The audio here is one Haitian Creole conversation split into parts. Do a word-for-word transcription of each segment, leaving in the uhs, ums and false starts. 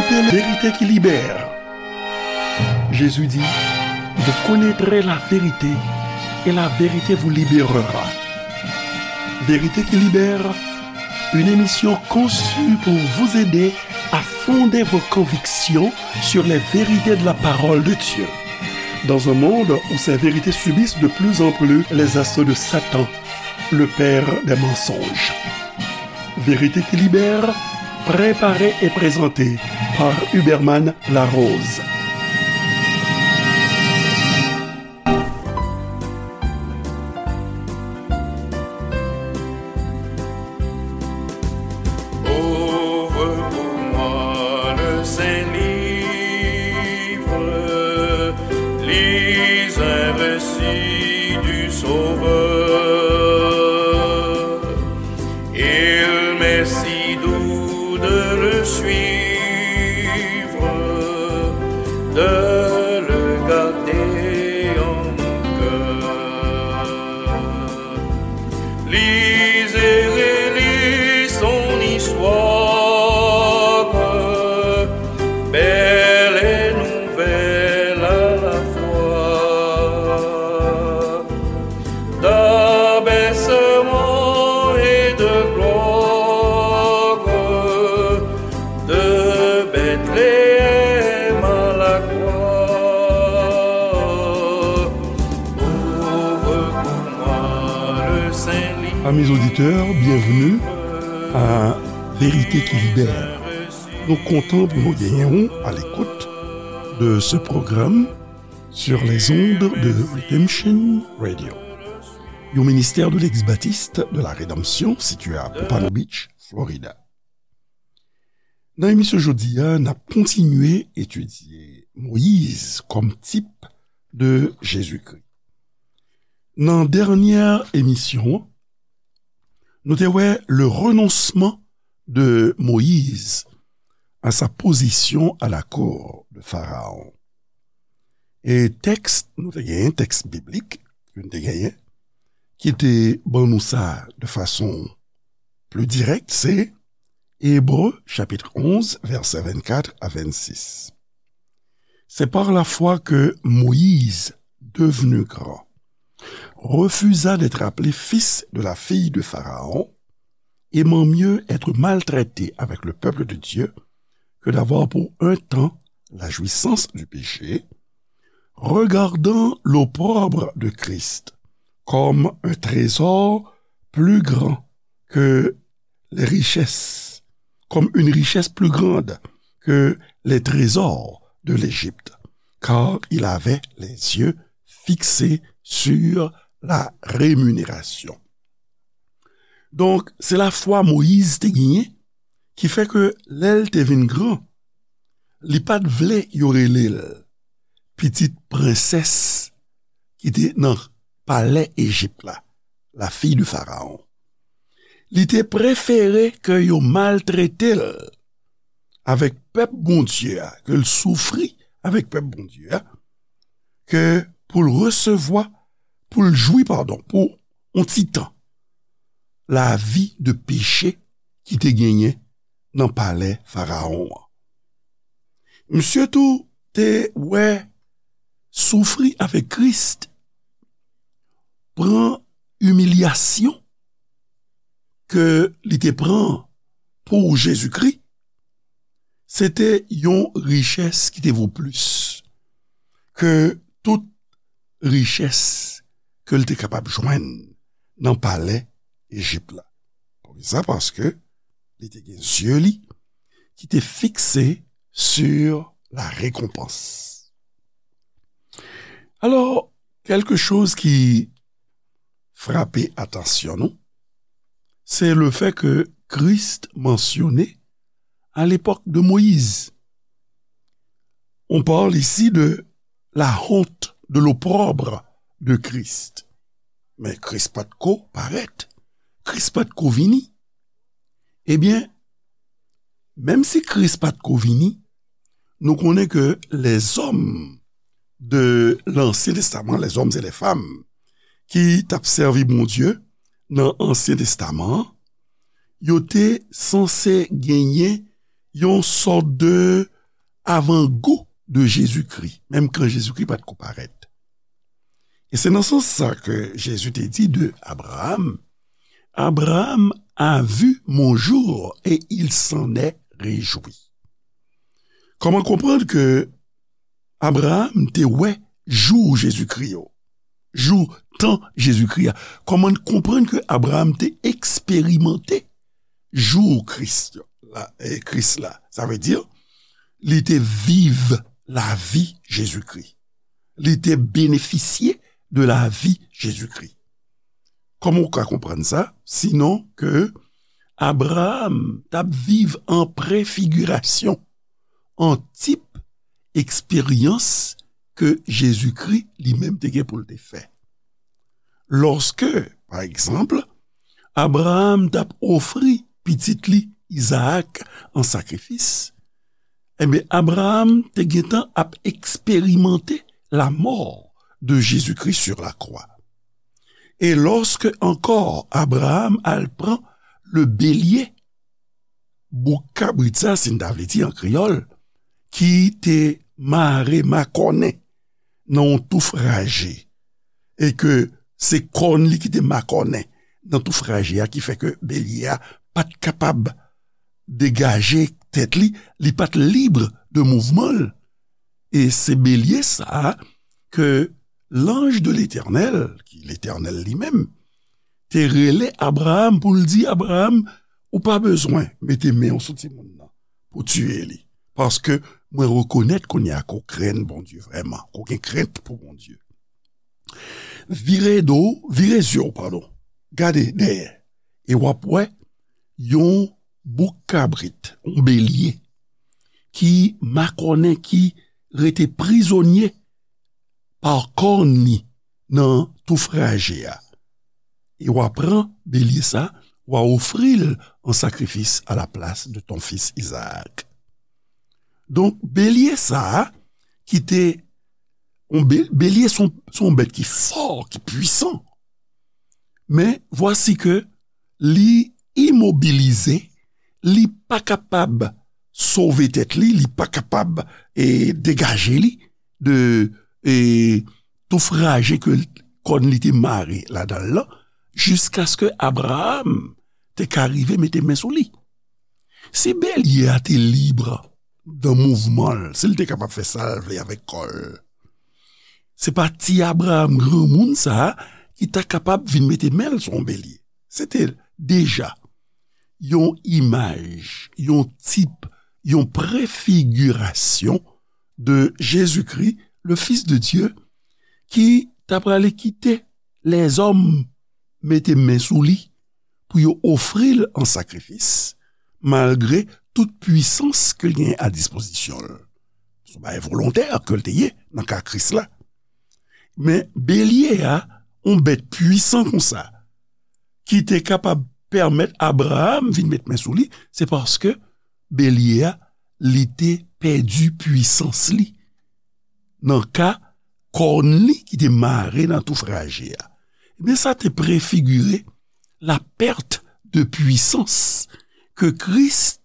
Vérité qui libère. Jésus dit, vous connaîtrez la vérité et la vérité vous libérera. Vérité qui libère, une émission conçue pour vous aider à fonder vos convictions sur les vérités de la parole de Dieu. Dans un monde où ces vérités subissent de plus en plus les assauts de Satan, le père des mensonges. Vérité qui libère, préparée et présentée par Huberman Larose. Ouvre pour moi le saint livre, lis un récit du Sauveur. Il m'est si doux de le suivre, de le garder en cœur. Lisez, relisez son histoire, belle et nouvelle à la fois. D'abaissement et de gloire, de Bethléem à la croix. Ouvre pour moi le saint livre. Amis auditeurs, bienvenue à Vérité qui libère. Nou kontan pou nou genyen w à l'écoute de ce programme sur les ondes de Redemption Radio, yon ministère de l'Ex-Baptiste de la Rédemption situé à Pompano Beach, Florida. Nan emisyon jodi a, n ap kontinye etidye Moyiz kòm tip de Jezikri. Nan dènyè emisyon an, nou te wè le renoncement de Moïse à sa position à la cour de Pharaon. E tèks nou te genyen, tèks biblik ke nou te genyen, ki te ban nou sa de fason pli dirèk, se Ebre, chapit onz, vèsè vennkat a vennsis. C'est par la foi que Moïse, devenu grand, refusa d'être appelé fils de la fille de Pharaon, aimant mieux être maltraité avec le peuple de Dieu que d'avoir pour un temps la jouissance du péché, regardant l'opprobre de Christ comme un trésor plus grand que les richesses, comme une richesse plus grande que les trésors de l'Égypte, car il avait les yeux fixés sur la rémunération. Donk, se lafwa Moyiz te genyen ki fè ke lè l te vin gran, li pa t vle yo rele l pitit prensès ki te nan palè Ejip la, la fille de Pharaon. Li te prefere ke yo maltrete l avèk pèp Bondye a, ke l soufri avèk pèp Bondye a, ke pou l resevwa, pou l jwi, padon, pou yon ti tan, lavi de peche ki te genyen nan palè Farawon an. Misye tou te wè soufri avèk Kris, pran imilyasyon ke li te pran pou Jezikri, se te yon richès ki te vo plis ke tout richès ke l te kapab jwenn nan palè Ejip la. Poukisa? Paske li te gen zye li ki te fikse sur la récompense. Alò, kèlke choz ki frape atansyon nou, se le fè ke Kris mansyone à l'époque de Moïse. On parle ici de la honte, de l'opprobre de Christ. Men Kris pa t ko parèt, Kris pa t ko vini. Ebyen, menm si Kris pa t ko vini, nou konnen ke lèzòm de Lansyen Testaman, lèzòm e lèfanm ki t ap sèvi Bondye nan Ansyen Testaman an, yo te sanse genyen yon sòt de avan gou de Jezikri, menm kan Jezikri pa t ko parèt. E se nan sans sa ke Jezi te di de Abraham, Abraham a vu mon jour et il s'en est réjoui. Kòman konprann ke Abraham te wè jou Jezikri yo, jou tan Jezikri a? Kòman n konprann ke Abraham te eksperimante jou Kris la, e, Kris la? Sa vle di, li te viv lavi Jezikri. Li te benefisye de lavi Jezikri. Kòman w ka konprann sa? Sinon ke Abraham t ap viv an prefigirasyon, an tip eksperyans ke Jezikri li menm te gen pou l te fè. Lòske, pa egzanp, Abraham t ap ofri pitit li Izaak an sakrifis, ebyen, Abraham te gentan ap eksperimante la mort de Jésus-Christ sur la croix. E lòske ankò Abraham al pran le bélier, bouk kabrit sa, si n ta vle di an kreyòl, ki te mare makònen nan yon touf raje, e ke se kòn li ki te makònen nan touf raje a, ki fè ke belye a pa t kapab degaje tèt li, li pa t lib de mouvman l. E se belye sa a ke l'ange de l'Éternel, ki Letènèl li menm, te rele Abraham pou l di Abraham, ou pa bezwen mete men w sou timoun nan pou tiye li. Paske mwen rekonèt kounye a ke w krenn Bondye vrèman, ke w gen krent pou Bondye. Vire do, vire zye w, padon. Gade dèyè. E w ap wè yon bouk kabrit, yon belye, ki makònen, ki rete prizonye pa kòn li nan touf raje a. E w a pran belye sa, w a ofri l an sakrifis à la place de ton fils Isaac. Donk, belye sa a, ki te, yon be-, belye se yon, se yon bèt ki fò, ki pwisan. Men, vwasi ke li imobilize, li pa kapab sove tèt li, li pa kapab, e, degaje li de, e, touf raje ke kòn li te mare ladan l lan, jiskaske Abraham te ka rive mete men sou li. Si belye a te lib dan mouvman l, si l te kapab fè sa l vle avèk kò l, se pa ti Abraham granmoun sa a ki ta kapab vin mete men l sou yon belye. Se te deja yon imaj, yon tip, yon prefigirasyon de Jezikri, le Fils de Dieu, ki ta prale kite lèzòm mete men sou li pou yo ofri l an sakrifis, malgre tout pwisans ke l genyen a dispozisyon l. Se yon bagay volontè ke l te ye nan ka Kris la. Men belye a, yon bèt pwisan konsa, ki te kapab pèmèt Abraham vin met men sou li, se paske belye a, li te pèdi pwisans li nan ka kòn li ki te mare nan touf raje a. Ebyen, sa te prefigire la perte de puissance ke Kris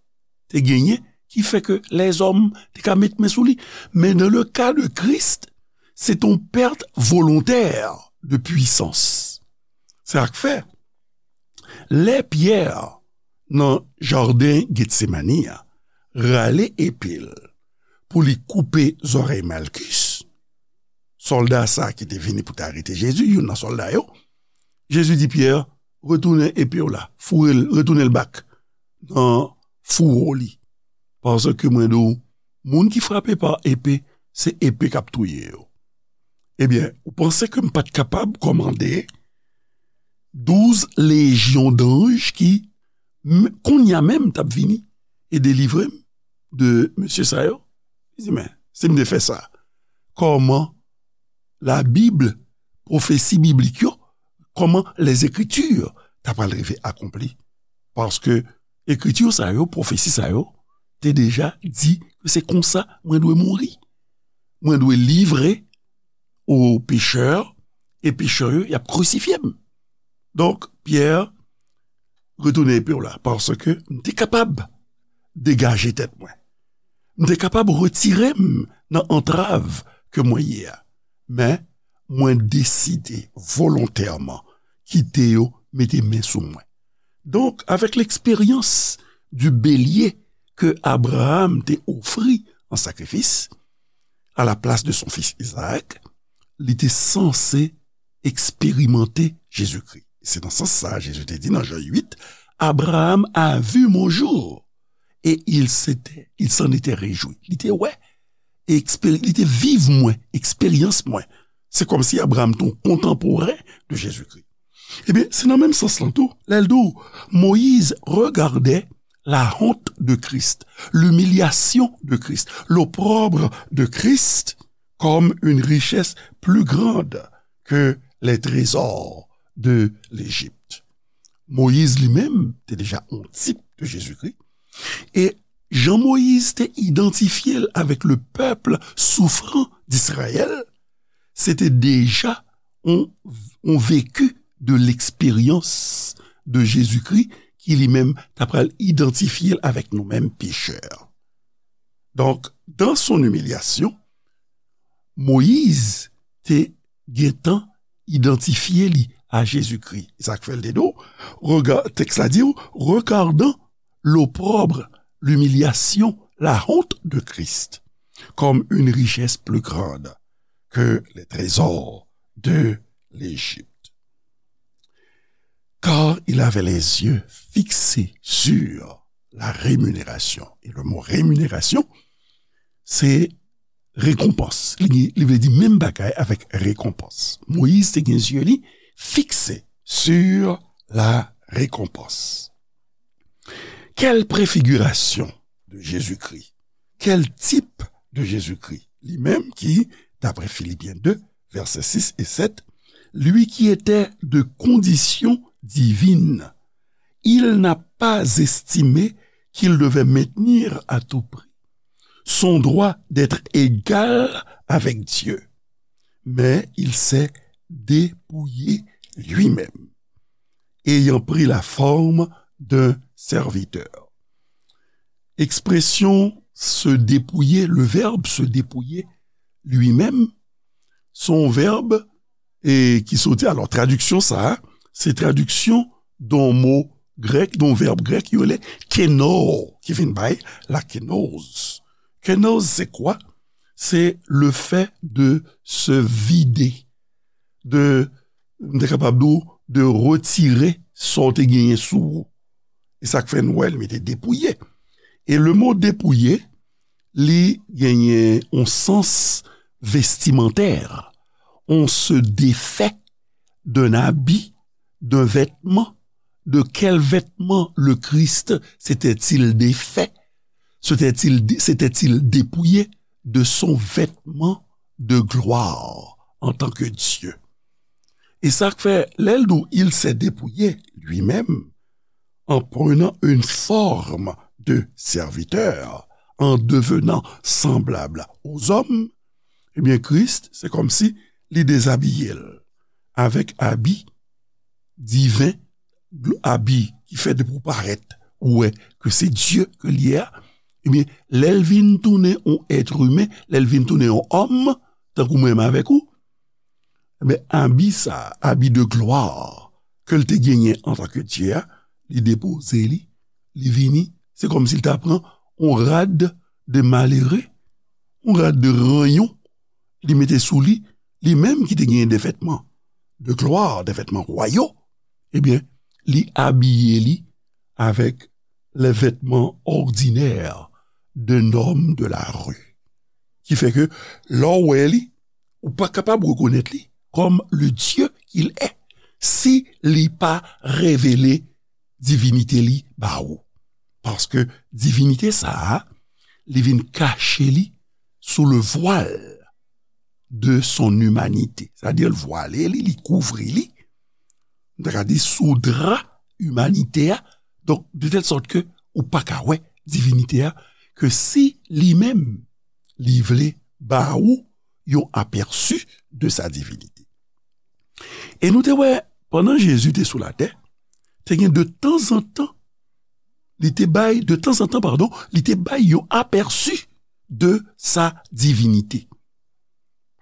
te genyen, ki fè ke lèzòm te ka met men sou li. Men dans le cas de Christ, c'est une perte volontaire de puissance. Sa k fè, lè Pyè nan jaden Getsemani a rale epe l pou li koupe zòrèy Malkis, sòlda sa ki te vini pou te arete Jezi, youn nan sòlda yo, Jezi di Pyè, retounen epe w la, foure l, retounen l bak nan fouwo li. Paske mwen di w, moun ki frape pa epe, se epe k ap touye yo. Ebyen, ou panse ke m pa t kapab kòmande douz lejyon danj ki, m-, kounye a menm, t ap vini e delivre m de mesye sa yo? Li di, men, si m te fè sa, kòman Labib, pwofesi biblik yo, kòman Lèzekritir ta pral rive akonpli? Paske ekriti sa yo, pwofesi sa yo, te deja di ke se konsa mwen dwe mouri. Mwen dwe livre o pechè, e pechè yo, y ap krisifye m. Donk, Pyè, retounen epe w la, paske m te kapab degaje tèt mwen. M te kapab retire m nan antrav ke mwen ye a. Men, mwen deside volontèman kite yo mete men sou mwen. Donk, avèk l'expérience du bélier ke Abraham te ofri an sakrifis, à la place de son fils Isaac, li te sanse eksperimante Jezikri. Se nan sans sa a, Jezi te di nan Jan uit, Abraham a vu mon jour, et il s'était, il s'en était réjoui. Li te wè, eksperi-, li te viv mwen, eksperyans mwen. Se kòmsi Abraham te yon kontanporen de Jezikri. Ebyen, se nan menm sans lan tou, lè l di w, Moïse regardait la honte de Christ, l'humiliation de Christ, l'opprobre de Christ, comme une richesse plus grande que les trésors de l'Égypte. Moyiz li menm te deja yon tip de Jezikri. E jan Moyiz te idantifye l avèk le peuple souffrant d'Israël, se te deja yon, yon vécu de l'expérience de Jezikri ki li menm ta pral idantifye l avèk nou menm pechè. Donk, dans son humiliation, Moyiz te gentan idantifye li a Jezikri. E sa k fè l te di w, rega-, tèks la di w, regardant l'opprobre, l'humiliation, la honte de Christ, comme une richesse plus grande que les trésors de l'Égypte. Car il avait les yeux fixés sur la rémunération. Et le mot rémunération, se rekonpans. Li, li vle di menm bagay avèk rekonpans. Moyiz te gen zye li fikse sur la récompense. Quelle préfiguration de Jésus-Christ? Quel type de Jésus-Christ? Li menm ki, d'après Philippiens deux, versets six et sept, lui qui était de condition divine, il n'a pas estimé qu'il devait maintenir à tout prix son droit d'être égal avec Dieu, mais il s'est dépouillé lui-même, ayant pris la forme d'un serviteur. Ekspresyon se dépouiller, le verbe se dépouiller lui-même, se yon vèb e ki soti, alò, tradiksyon sa a, se tradiksyon de yon mo grèk, de yon vèb grèk, yo rele keno, ki vin bay la kenoz. Kenoz, c'est quoi? C'est le fait de se vider, de, m te kapab di w, de retire sa w te genyen sou ou. E sa k fè n wè l mete depouye. E le mo depouye, li genyen yon sans vestimentaire. On se défait d'un habit, d'un vêtement. De quel vêtement le Christ s'était-il défait? S'était-il, s'était-il dépouillé de son vêtement de gloire en tant que Dieu? E sa k fè, lè l di w, il s'est dépouillé lui-même, en prenant une forme de serviteur, en devenant semblable aux hommes, ebyen, Kris, se kòmsi li dezabiye l avèk abi diven, gl-, abi ki fè depi w parèt, ou wè ke se Dye ke l ye a. Ebyen, lè l vin tounen yon èt imen, lè l vin tounen yon òm, tankou mwen menm avèk ou, men abi sa, abi de glwa ke l te genyen antanke Dye a, li depoze li, li vini, se kòmsi l ta pran yon rad de malere, yon rad de ranyon, li mete sou li, li menm ki te genyen de vètman de glwa, de vètman wayal, ebyen, li abiye li avèk les vêtements ordinaires d'un homme de la rue. Ki fè ke lè w wè li, ou pa kapab rekonèt li comme le Dieu qu'il est si li pa revele divinite li ba ou. Paske divinite sa a, li vin kache li sous le voile de son humanité. Sa di l vwale li, li kouvri li. M ta ka di sou dra imanite a. Donk, de tèl sòt ke ou pa ka wè divinite a, ke si li menm, li vle ba ou yon apèsi de sa divinite. E nou te wè, pandan Jezi te sou latè, te gen de tanzantan, li te bay, de tanzantan, padon, li te bay yon apèsi de sa divinité.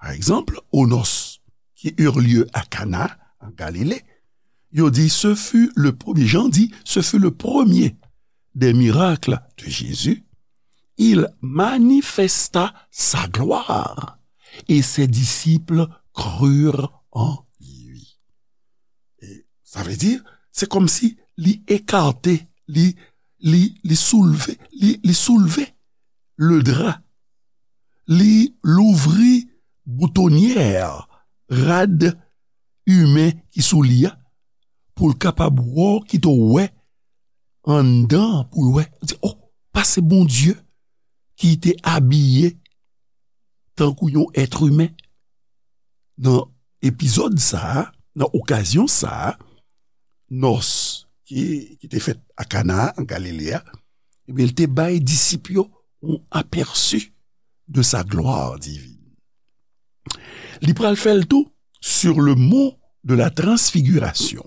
Par exemple, aux noces qui eurent lieu à Cana, en Galilée, yo di, ce fut le premier, Jean dit, ce fut le premier des miracles de Jésus. Il manifesta sa gloire et ses disciples crurent en lui. E sa vle di, se kòmsi li ekate, li, li, li soulve, li, li soulve le drap, li louvri boutonyè rad imen ki sou li a, pou l kapab wè, kite w wè anndan, pou l wè, di, oh, pase Bondye ki te abiye tankou yon èt imen. Nan epizòd sa a, nan okazyon sa a, nòs ki, ki te fèt a Kana, an Galile a, ebyen, li te bay disip yo yon apèsi de sa gloire divine. Li pral fè l tou sur le mont de la transfiguration.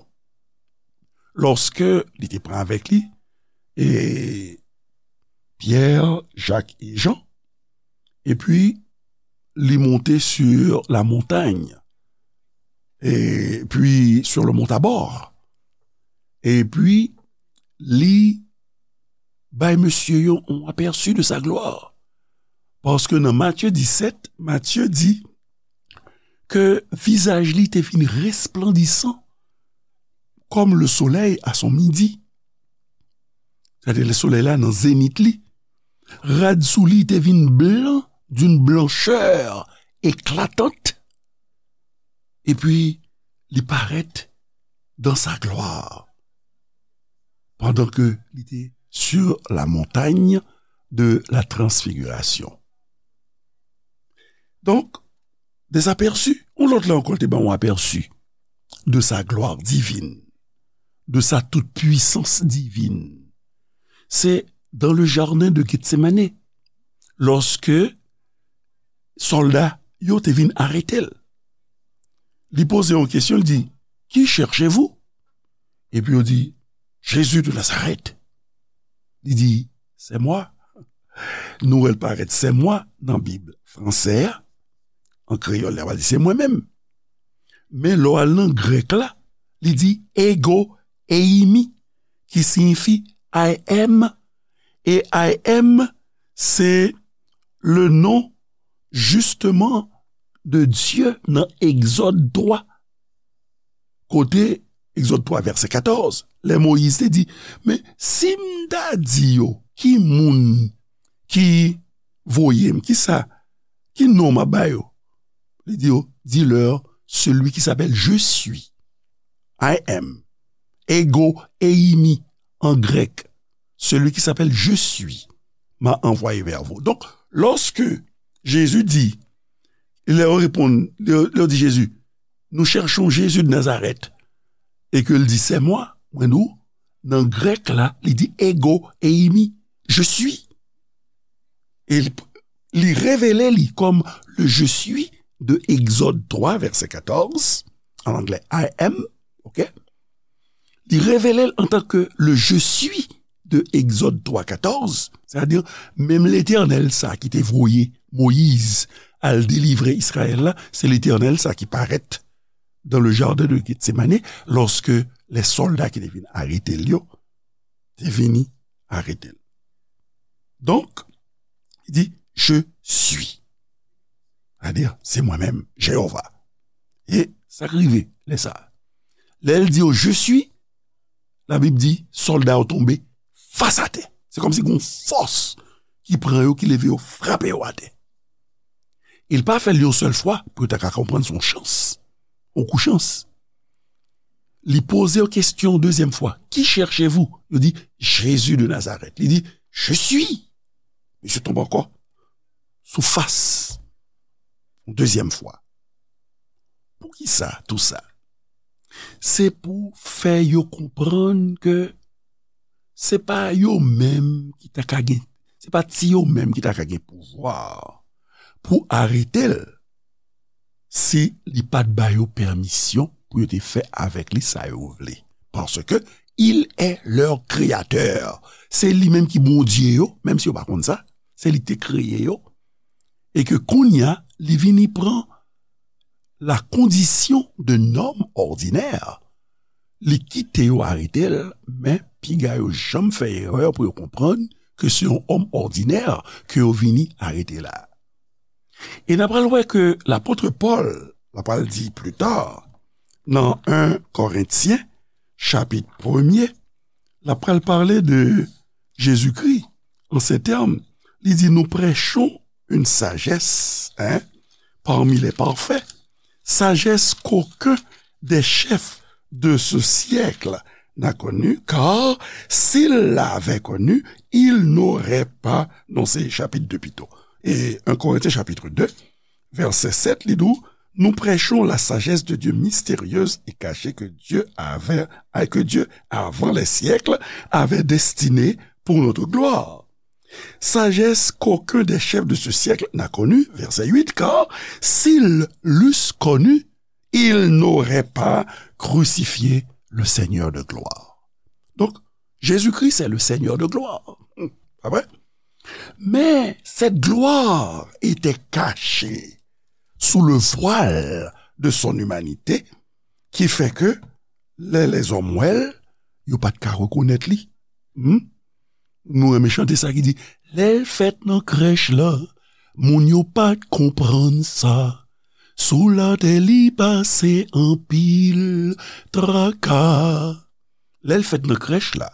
Lòske li te pran avèk li, e, Pyè, Jak e Jan, epi li monte sur la montagne, epi sur le mont Tabor, epi li bay mesye yo yon apèsi de sa gloire. Paske nan Matye disèt, Matye di ke vizaj li te vin resplandisan comme le soleil à son midi. Gade lè solèy la nan zenit li. Rad sou li te vin blan d'une blancheur éclatante. Epi li parèt dans sa gloire pendant que li te sur la montagne de la transfiguration. Donk, des aperçus, yon lòt la ankò, l te ban yon apèsi de sa gloire divine, de sa toute puissance divine. Se dans le jardin de Gethsemane, lòske sòlda yo te vin arete l. Li poze yon kesyon, li di, qui cherchez-vous? Epi yo di, Jésus de Nazareth. Li di, c'est moi. Nou wè l parèt c'est moi nan Bib fransè a. An kreyòl, li va di c'est moi-même. Men lè w al nan grèk la, li di ego eimi, ki siyifi I am. E I am, se le nom justement de Dieu nan Egzòd twa. Kote Egzòd twa, vèsè katòz, lè Moyiz te di, men si m ta di yo, ki moun ki voye m, ki sa, ki non m ap ba yo? Li di yo, dis-leur, celui qui s'appelle Je suis. I am. Ego eimi en grec. Celui qui s'appelle Je suis m'a envoyé vers vous. Donk, lòske Jezi di, lè yo reponn, lè yo, lè yo di Jezi, nous cherchons Jésus de Nazareth, e ke l di, c'est moi, mwen di w, nan grèk la, li di ego eimi, je suis. E li, li revele li kòm le je suis de Exode trois, verset quatorze, en anglais I am, ok? Li revele l antanke le je suis de Exode trois quatorze, sètadi menm Letènèl sa ki te voye Moyiz al delivre Izrayèl la, se Letènèl sa ki parèt dans le jardin de Gethsemane, lòske lè sòlda ki te vin arete l yo te vini arete l. Donk, li di, je suis. Sètadi, se mwen menm, Jewova. E sa k rive lè sa a. Lè l di yo, je suis, Labib di, sòlda yo tonbe fas atè. Se kòmsi gen yon fòs ki pran yo, ki leve yo, frape yo atè. E l pa fè l yon sèl fwa pou yo ta ka konprann se yon chans, yon kou chans. Li poze yo kesyon dezyèm fwa, qui cherchez-vous? Yo di, Jésus de Nazareth. Li di, je suis. Misye tonbe ankò sou fas yon dezyèm fwa. Poukisa tou sa? Se pou fè yo konprann ke se pa yo menm ki ta ka gen, se pa ti yo menm ki ta ka gen pouvwa pou arete l si li pa t ba yo pèmisyon pou yo te fè avèk li sa yo vle. Paske il est leur créateur. Se li menm ki Bondye yo, menm si yo pa konn sa, se li ki te kreye yo. e ke kounye a, li vini pran la kondisyon de nonm òdinè, li kite yo arete l, men piga yo janm fè erè pou yo konprann ke se yon òm òdinè ke yo vini arete la. E n a pral wè ke lapot Pòl, l a pral di pli ta, nan en Korentyen, chapit premye, l a pral pale de Jezikri, an se tèm, li di, nous prêchons une sagesse, hein, parmi les parfaits, sagesse qu'aucun des chefs de ce siècle n'a connue, car s'il l'avait connue, il n'aurait pas, non, se chapit de pito. E en Korentyen chapit de, vèsè sèt, li di, nous prêchons la sagesse de Dieu mystérieuse et cachée que Dieu avait, que Dieu, avant les siècles, avait destinée pour notre gloire. Sagesse qu'aucun des chefs de ce siècle n'a connue, verset huit, car s'ils l'eussent connue, ils n'auraient pas crucifié le Seigneur de gloire. Donc, Jésus-Christ est le Seigneur de gloire. Hmm, pas vrai? Mais cette gloire était cachée sous le voile de son humanité, qui fait que lè lèzòm wè l, yo pa t ka rekonèt li. Hmm? Nou renmen chante sa ki di, lè l fèt nan krèch la, moun yo pa t konprann sa. Sou latè li pase anpil traka. Lè l fèt nan krèch la,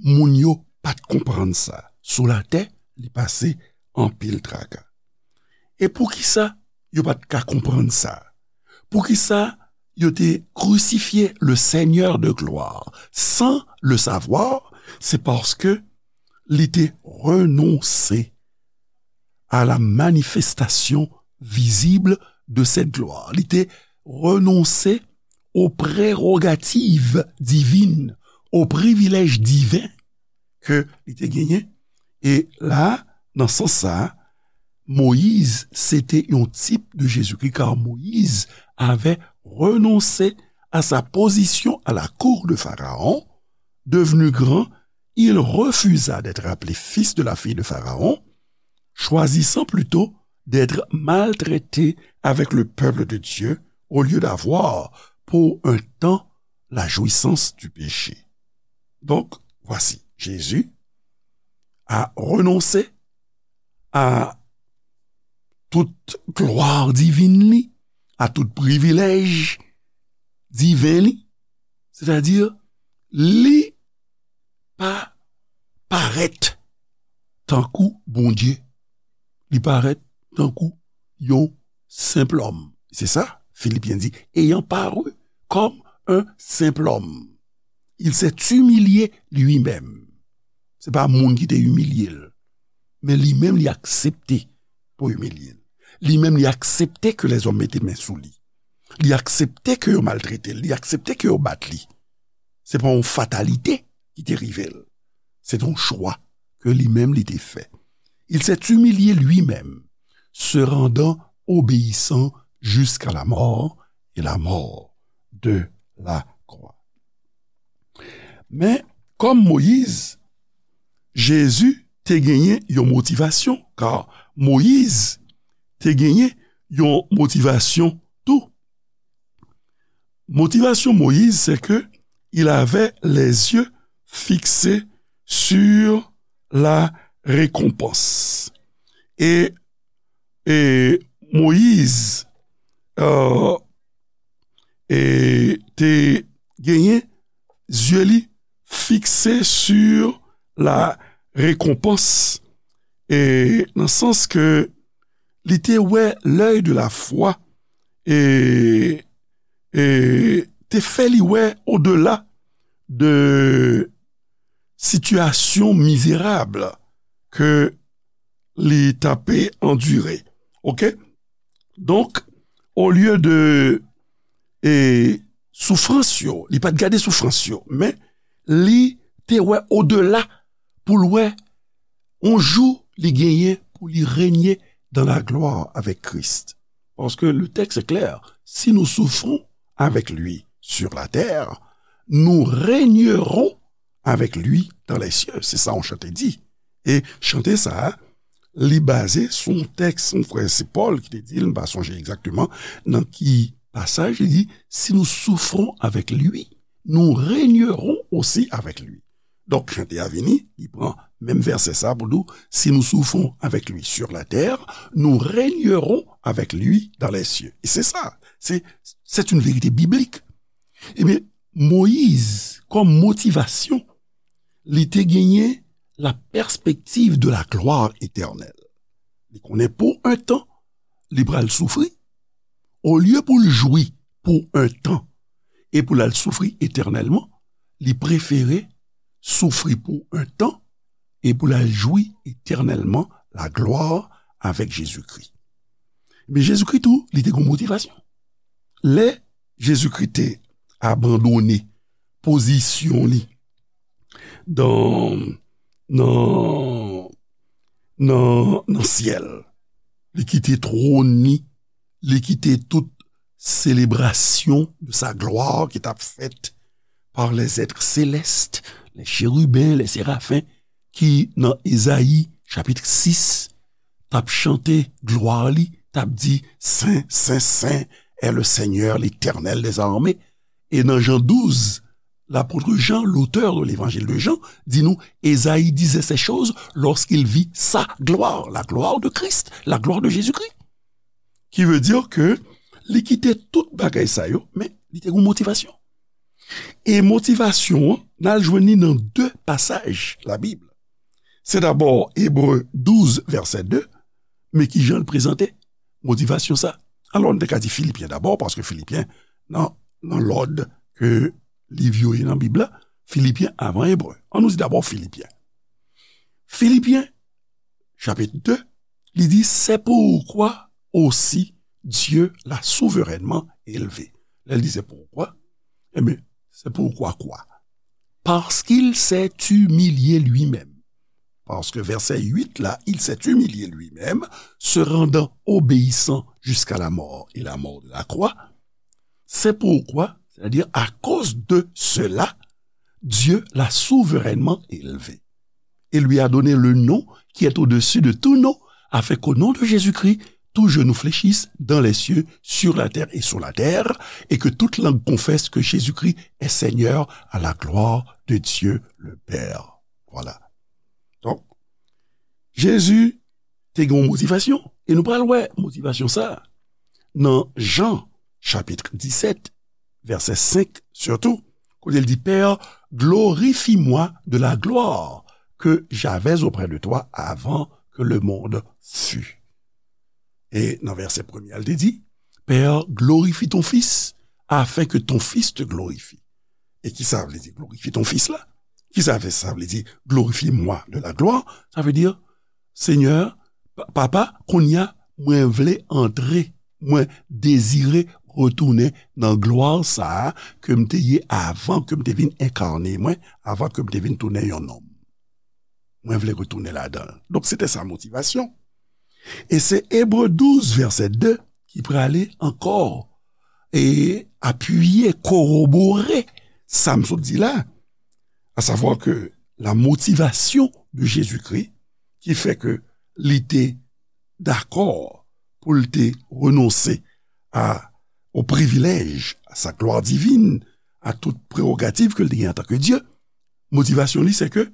moun yo pa t konprann sa. Sou latè, li pase anpil traka. E poukisa yo pa t ka konprann sa? Poukisa yo te crucifié le Seigneur de gloire sans le savoir? C'est parce que li te renonse à la manifestation visible de cette gloire. Li te renonse aux prérogatives divines, aux privilèges divins ke li te genyen. E la, nan sans sa, Moyiz se te yon tip de Jezikri, car Moïse avait renoncé à sa position à la cour de Pharaon. Devenu grand, il refusa d'être appelé fils de la fille de Pharaon, choisissant plutôt d'être maltraité avec le peuple de Dieu au lieu d'avoir pour un temps la jouissance du péché. Donc, voici, Jésus a renoncé à toute gloire divine li, à tout privilège divin li, c'est-à-dire, li pa parèt tankou Bondye. Li parèt tankou yon senp lòm. Se sa, Filipyen di, ayant paru comme un simple homme, il s'est humilié lui-même. Se pa moun ki te imilye l, men li menm li aksepte pou imilye l. Li menm li aksepte ke lèzòm mete men sou li. Li aksepte ke yo maltrete l, li aksepte ke yo bat li. Se pa yon fatalite ki te rive l. Se te yon chwa ke li menm li te fè. Il s'est humilié lui-même, se rendant obéissant jusqu'à la mort et la mort de la croix. Men, kòm Moyiz, Jezi te genyen yon motivasyon, kar Moyiz te genyen yon motivasyon tou. Motivasyon Moyiz, c'est que il avait les yeux fixés sur la récompense. E, e Moyiz, euh, e te genyen zye li fikse sur la récompense, e nan sans ke li te wè l'œil de la foi, e, e te fè li wè odela de sitiyasyon mizerab ke li t ape andire. Oke? Donk, olye de, e, soufrans yo, li pa t gade soufrans yo, men li te wè odela pou l wè yon jou li genyen pou li renye dans la gloire avec Christ. Parce que le texte est clair, si nous souffrons avec lui sur la terre, nous régnerons avec lui dans les cieux. Se sa yon chante di. E chante sa a, li baze sou yon tèks, yon frè, se Pòl ki te di l, m pa sonje egzakteman nan ki pasaj, li di, si nous souffrons avec lui, nous régnerons aussi avec lui. Donk, chante a vini, li pran menm vèsè sa pou nou, si nous souffrons avec lui sur la terre, nous régnerons avec lui dans les cieux. E se sa, se, c'est une vérité biblique. Ebyen, Moyiz, kòm motivasyon, li te genyen la perspective de la gloire éternelle. Li konnen pou un tan, li pral soufri. Olye pou l jwi pou un tan e pou l al soufri etènèlman, li prefere soufri pou un tan e pou l al jwi etènèlman la gloire avec Jésus-Christ. Men Jezikri tou, li te gen motivasyon. Lè Jezikri te abandone pozisyon li dan, nan, nan, nan syèl, li kite twòn li, li kite tout selebrasyon de sa glwa ki t ap fèt par les êtres célestes, les chérubins, les séraphins, ki nan Ezayi chapit sis, t ap chante glwa li, t ap di, Sen, sen, sen est le Seigneur, l'Éternel des armées. E nan Jan douz, lapot Jan, l'auteur de l'évangile de Jean, di nou, Ezayi disait ces choses lorsqu'il vit sa gloire, la gloire de Christ, la gloire de Jésus-Christ. Ki vle di ke li kite tout bagay sa yo, men li te gen motivasyon. E motivasyon an, n al jwenn li nan de pasaj Labib. Se dabò Ebre douz, vèsè de, men ki jan l prezante motivasyon sa. Alò, n te ka di Filipyen dabò, paske Filipyen, nan, nan lòd ke liv yo ye nan Bib la, Filipyen avan Ebre. Ann nou di dabò Filipyen. Filipyen, chapit de, li di, c'est pourquoi aussi Dieu l'a souverainement élevé. Lè l di c'est pourquoi, ebyen, c'est pourquoi quoi? Parce qu'il s'est humilié lui-même. Paske vèsè uit la, il s'est humilié lui-même, se rendant obéissant jusqu'à la mort et la mort de la croix. C'est pourquoi, c'est-à-dire à cause de cela, Dieu l'a souverainement élevé et lui a donné le nom qui est au-dessus de tout nom, afin qu'au nom de Jésus-Christ, tout genou fléchisse dans les cieux, sur la terre et sous la terre, et que toute langue confesse que Jésus-Christ est Seigneur à la gloire de Dieu le Père. Voilà. Donk, Jezi te gen yon motivasyon. E nou pral wè motivasyon sa a nan Jan, chapit disèt, vèsè senk sitou, kote l di, Père, glorifie-moi de la gloire que j'avais auprès de toi avant que le monde fût. E nan vèsè premye a, l te di, Père, glorifie ton Fils, afin que ton Fils te glorifie. E ki sa vle di glorifie ton Fils la? Ki sa vle, sa vle di glorifie-moi de la gloire? Sa vle di, Senyè, Pa-, Papa, kounye a, mwen vle antre, mwen dezire retounen nan glwa sa a ke m te ye avan ke m te vin enkane mwen, avan ke m te vin tounen yon nonm. Mwen vle retounen ladan l. Donk, se te sa motivasyon. E se Ebre douz, vèsè de, ki prale ankò e apiye, korobore sa m sot di la, à savoir que la motivation de Jésus-Christ, ki fè ke li te dakò pou l te renonse a, au privilège, à sa gloire divine, à toute prérogative ke l te gen antanke Dye, motivasyon li, se ke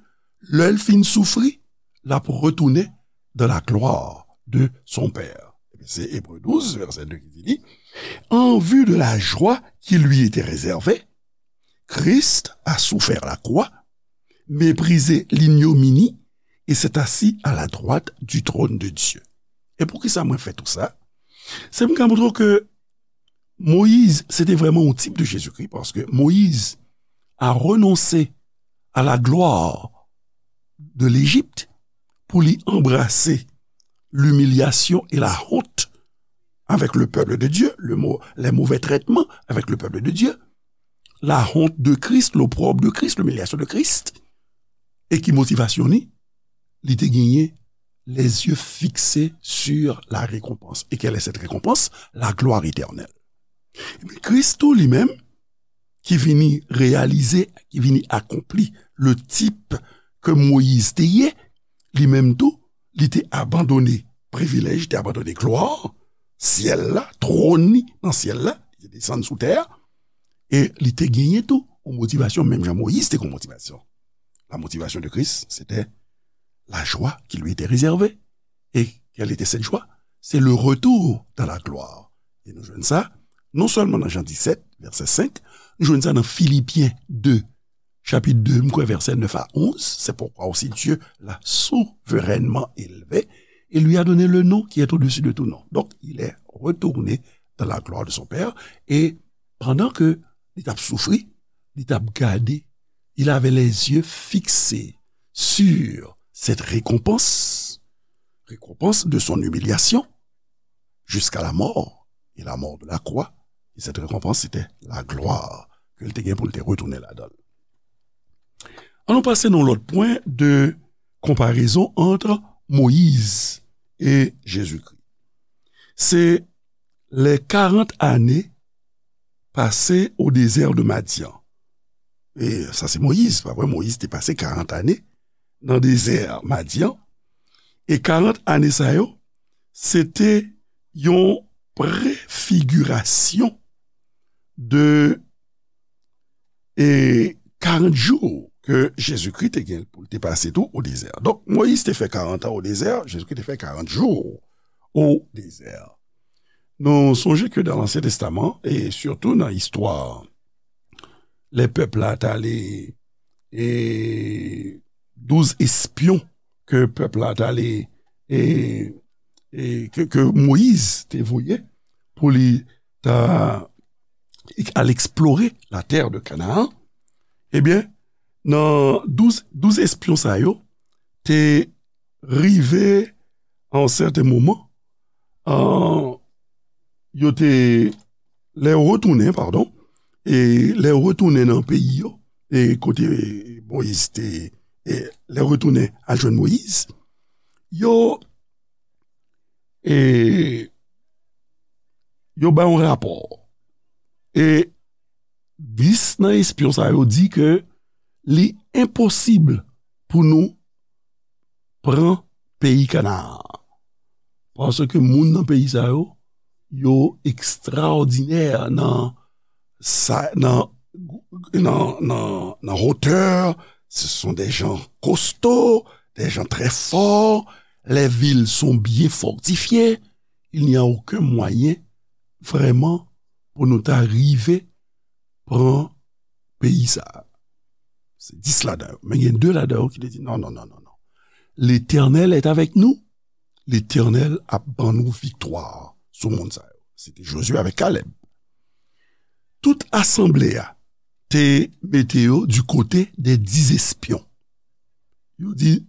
lè l fin soufri, l ap retounen dans la gloire de son Père. Se Ebre douz, vèsè de ki di li, En vue de la joie qui lui était réservée, Christ a souffert la croix, méprisé l'ignominie, et s'est assis à la droite du trône de Dieu. E poukisa mwen fè tou sa? Se pou m ka montre w ke Moyiz, se te vrèman yon tip de Jezikri, paske Moyiz a renonse à la gloire de l'Égypte pou li anbrase l'humiliation et la honte avec le peuple de Dieu, le mau-, les mauvais traitements avec le peuple de Dieu, la honte de Christ, l'opprobre de Christ, l'humiliation de Christ. E ki motivasyon li? Li te genyen les yeux fixés sur la récompense. Et quelle est cette récompense? La gloire éternelle. Ebyen, Kris tou li menm, ki vini reyalize, ki vini akonpli le tip ke Moyiz te ye, li menm tou, li te abandone privilèj, li te abandone glwa, syèl la, twòn li nan syèl la, li te desann sou tè a, e li te genyen tou yon motivasyon, menm jan Moyiz te gen yon motivasyon. La motivation de Christ, c'était la joie qui lui était réservée. Et quelle était cette joie? C'est le retour dans la gloire. E nou jwenn sa, non sèlman nan Jan disèt, vèsè senk, nou jwenn sa nan Filipyen de, chapit de, m kwè vèsè nèf a onz, c'est pourquoi aussi Dieu l'a souverainement élevé et lui a donné le nom qui est au-dessus de tout nom. Donc, il est retourné dans la gloire de son Père, et pandan ke li t ap soufri, li t ap gade, il avait les yeux fixés sur cette récompense, récompense de son humiliation jusqu'à la mort et la mort de la croix. Et cette récompense, c'était la gloire ke l te gen pou l te retounen ladan l. Ann nou pase nan yon lòt pwen de konparezon ant Moyiz e Jezikri. Se les quarante années passées au désert de Madian. E sa se Moyiz, pa vre? Moyiz te pase karant ane nan dezè Madian. E karant ane sa yo, se te yon prefigirasyon de e karant jou ke Jezikri te gen pou l te pase tou o dezè. Donk, Moyiz te fè karant an o dezè, Jezikri te fè karant jou o dezè. Nou sonje ke dan Lansyen Testaman, e sitou nan istwa, lè pèp la t ale, e douz espyon ke pèp la t ale, e, e ke, ke Moyiz te voye pou li ta al eksplore la terre de Canaan, ebyen, nan douz, douz espyon sa yo te rive a yon sèten moman, an, yo te, lè yo retounen, padon, e lè yo retounen nan peyi yo, e kote Moyiz te, e lè yo retounen al jwenn Moyiz, yo, e yo bay yon rapò. E dis nan espyon sa yo di ke li enposib pou nou pran peyi Kanaan. Paske moun nan peyi sa yo, yo ekstraòdinè nan sa, nan, nan, nan, nan hauteur, ce sont des gens costauds, des gens très forts, les villes sont bien fortifiées, il n'y a aucun moyen vraiment pou nou ta rive pran peyi sa a. Se dis ladan yo. Men gen de ladan yo ki te di, non, non, non, non, non. L'Éternel est avec nous. Letènèl ap ban nou viktwa sou moun sa yo. Se te Jozye avèk Kalèb. Tout asanble a te mete yo di kote de dis espyon. Yo di,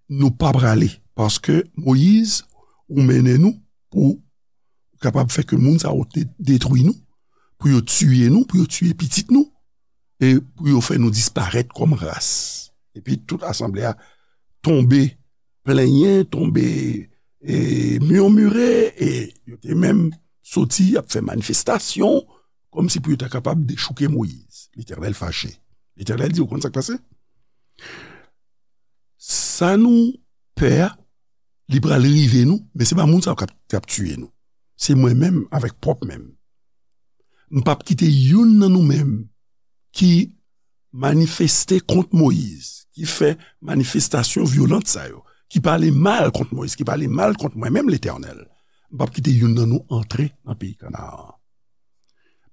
nou pa prale, paske Moyiz, ou mennen nou pou kapab fè ke moun sa yo te detwi nou, pou yo tiye nou, pou yo tiye pitit nou, e pou yo fè nou disparèt kòm ras. Epi tout asanble a tonbe plenyen, tonbe, e, mimire, e yo te menm soti ap fè manifestasyon, kòmsi pou yo ta kapab dechouke Moyiz. Letènèl fache. Letènèl di, ou konn sa k pase? Sa nou pè a, li pral rive nou, men se pa moun sa yo k ap, k ap tiye nou. Se mwen menm avèk pwòp men m. M p ap kite youn nan nou menm ki manifeste kont Moyiz, ki fè manifestasyon vyolant sa yo, ki pale mal kont Moyiz, ki pale mal kont mwen menm, Letènèl. M p ap kite youn nan nou antre nan peyi Kanaan an.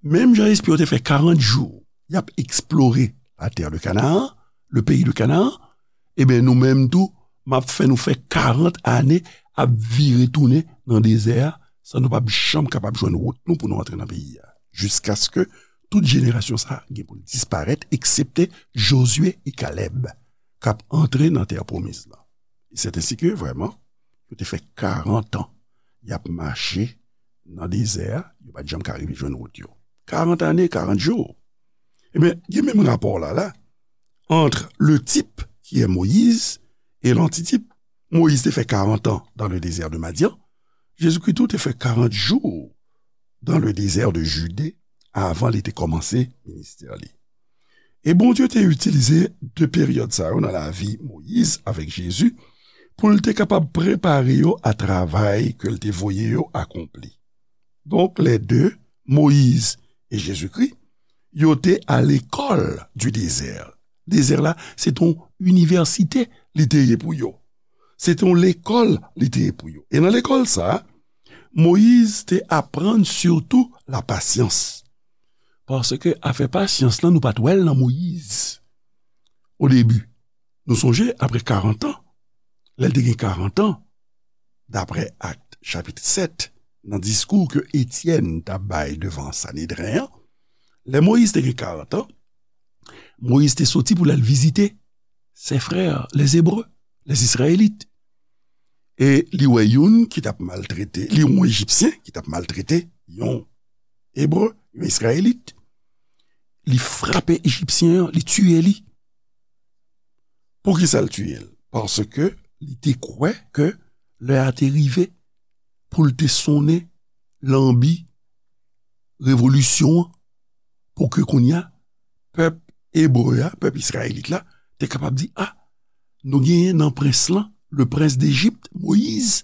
Menm jan espyon yo te fè karant jou, y ap eksplore la terre de Canaan, le pays de Canaan, ebyen, nou menm tou, m ap fè nou fè karant ane ap vire tounen nan dezè a, san nou p ap janm kapab jwenn wout nou pou nou antre nan peyi a. Jiskaske tout jenerasyon sa a gen pou l disparèt, eksepte Jozye e Kalèb, k ap antre nan tè pwomiz lan. E c'est ainsi que, vraiment, yo te fè karant an y ap mache nan dezè a, yo pa t janm ka rive jwenn wout yo. Karant ane, karant jou. Ebyen, gen menm rapò la, la, entre le type qui est Moïse et l'antitype. Moïse te fè karant an dans le désert de Madian. Jezikri tou te fè karant jou dans le désert de Judée avan li te kòmanse ministè li. E Bondye te itilize de peryòd sa yo nan lavi Moyiz avèk Jezi pou l te kapab prepare yo a travay ke l te voye yo akonpli. Donk, lè de, Moyiz e Jezikri, yo te a lekòl di dezè. Dezè la, se t on inivèsite li te ye pou yo. Se t on lekòl li te ye pou yo. E nan lekòl sa a, Moyiz te aprann sitou lapasyans. Paske afè pasyans lan, nou pa t wè l nan Moyiz o debi. Nou sonje, apre karant an, lè l te gen karant an, daprè Akt chapit sèt, nan diskou ke Etyèn t ap bay devan Sanedren an, lè Moyiz te gen karant an, Moyiz te soti pou l al vizite ses frères, les Hébreux, les Israélites. E li wè youn ki t ap maltrete, li wè yon Ejipsyen ki t ap maltrete yon Ebre, yon Izrayelit. Li frape Ejipsyen an, li tiye li. Poukisa l tiye l? Paske li te kwè ke lè a te rive pou l te sonnen lanbi revolisyon an, pou ke kounye a, pèp ebre a, pèp izrayelit la, te kapab di, a, nou genyen nan prens lan, le prince d'Égypte, Moyiz,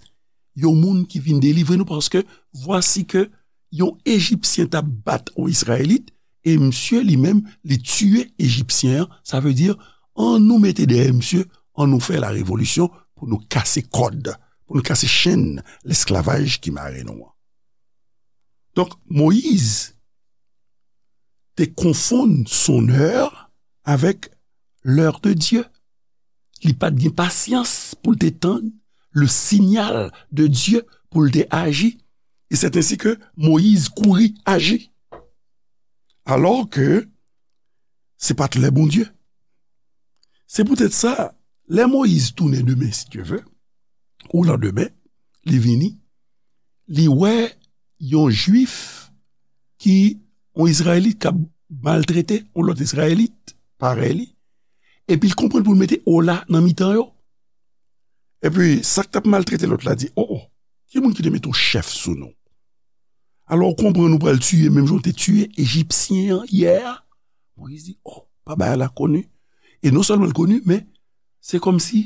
yon moun ki vin delivre nou, paske vwasi ke yon Ejipsyen t ap bat yon Izrayelit, e misye li menm, li tiye Ejipsyen an, sa vle di, an nou mete dèyè misye, an nou fè la revolisyon pou nou kase kòd, pou nou kase chenn lesklavaj ki mare nou an. Donk, Moyiz te konfonn son heure avec l'heure de Dieu. Li pa t gen pasyans pou l te tann le signal de Dieu pou l te aji. E c'est ainsi que Moyiz kouri aji. Alò ke se pa t lè Bondye. Se poutèt sa, lè Moyiz tounen demen, si Dye vle, ou landemen, li vini, li wè yon Jwif ki, yon Izrayelit k ap maltrete yon lòt Izrayelit parèy li, epi l konprann pou l mete ola nan mitan yo. Epi, sa k t ap maltrete lòt la di, o, o, ki moun ki te mete w chèf sou nou? Alò, w konprann ou pral tiye menm jan w te tiye Ejipsyen an yè a? Moyiz di, o, pa bagay la koni. E non sèlman l koni, men se kòmsi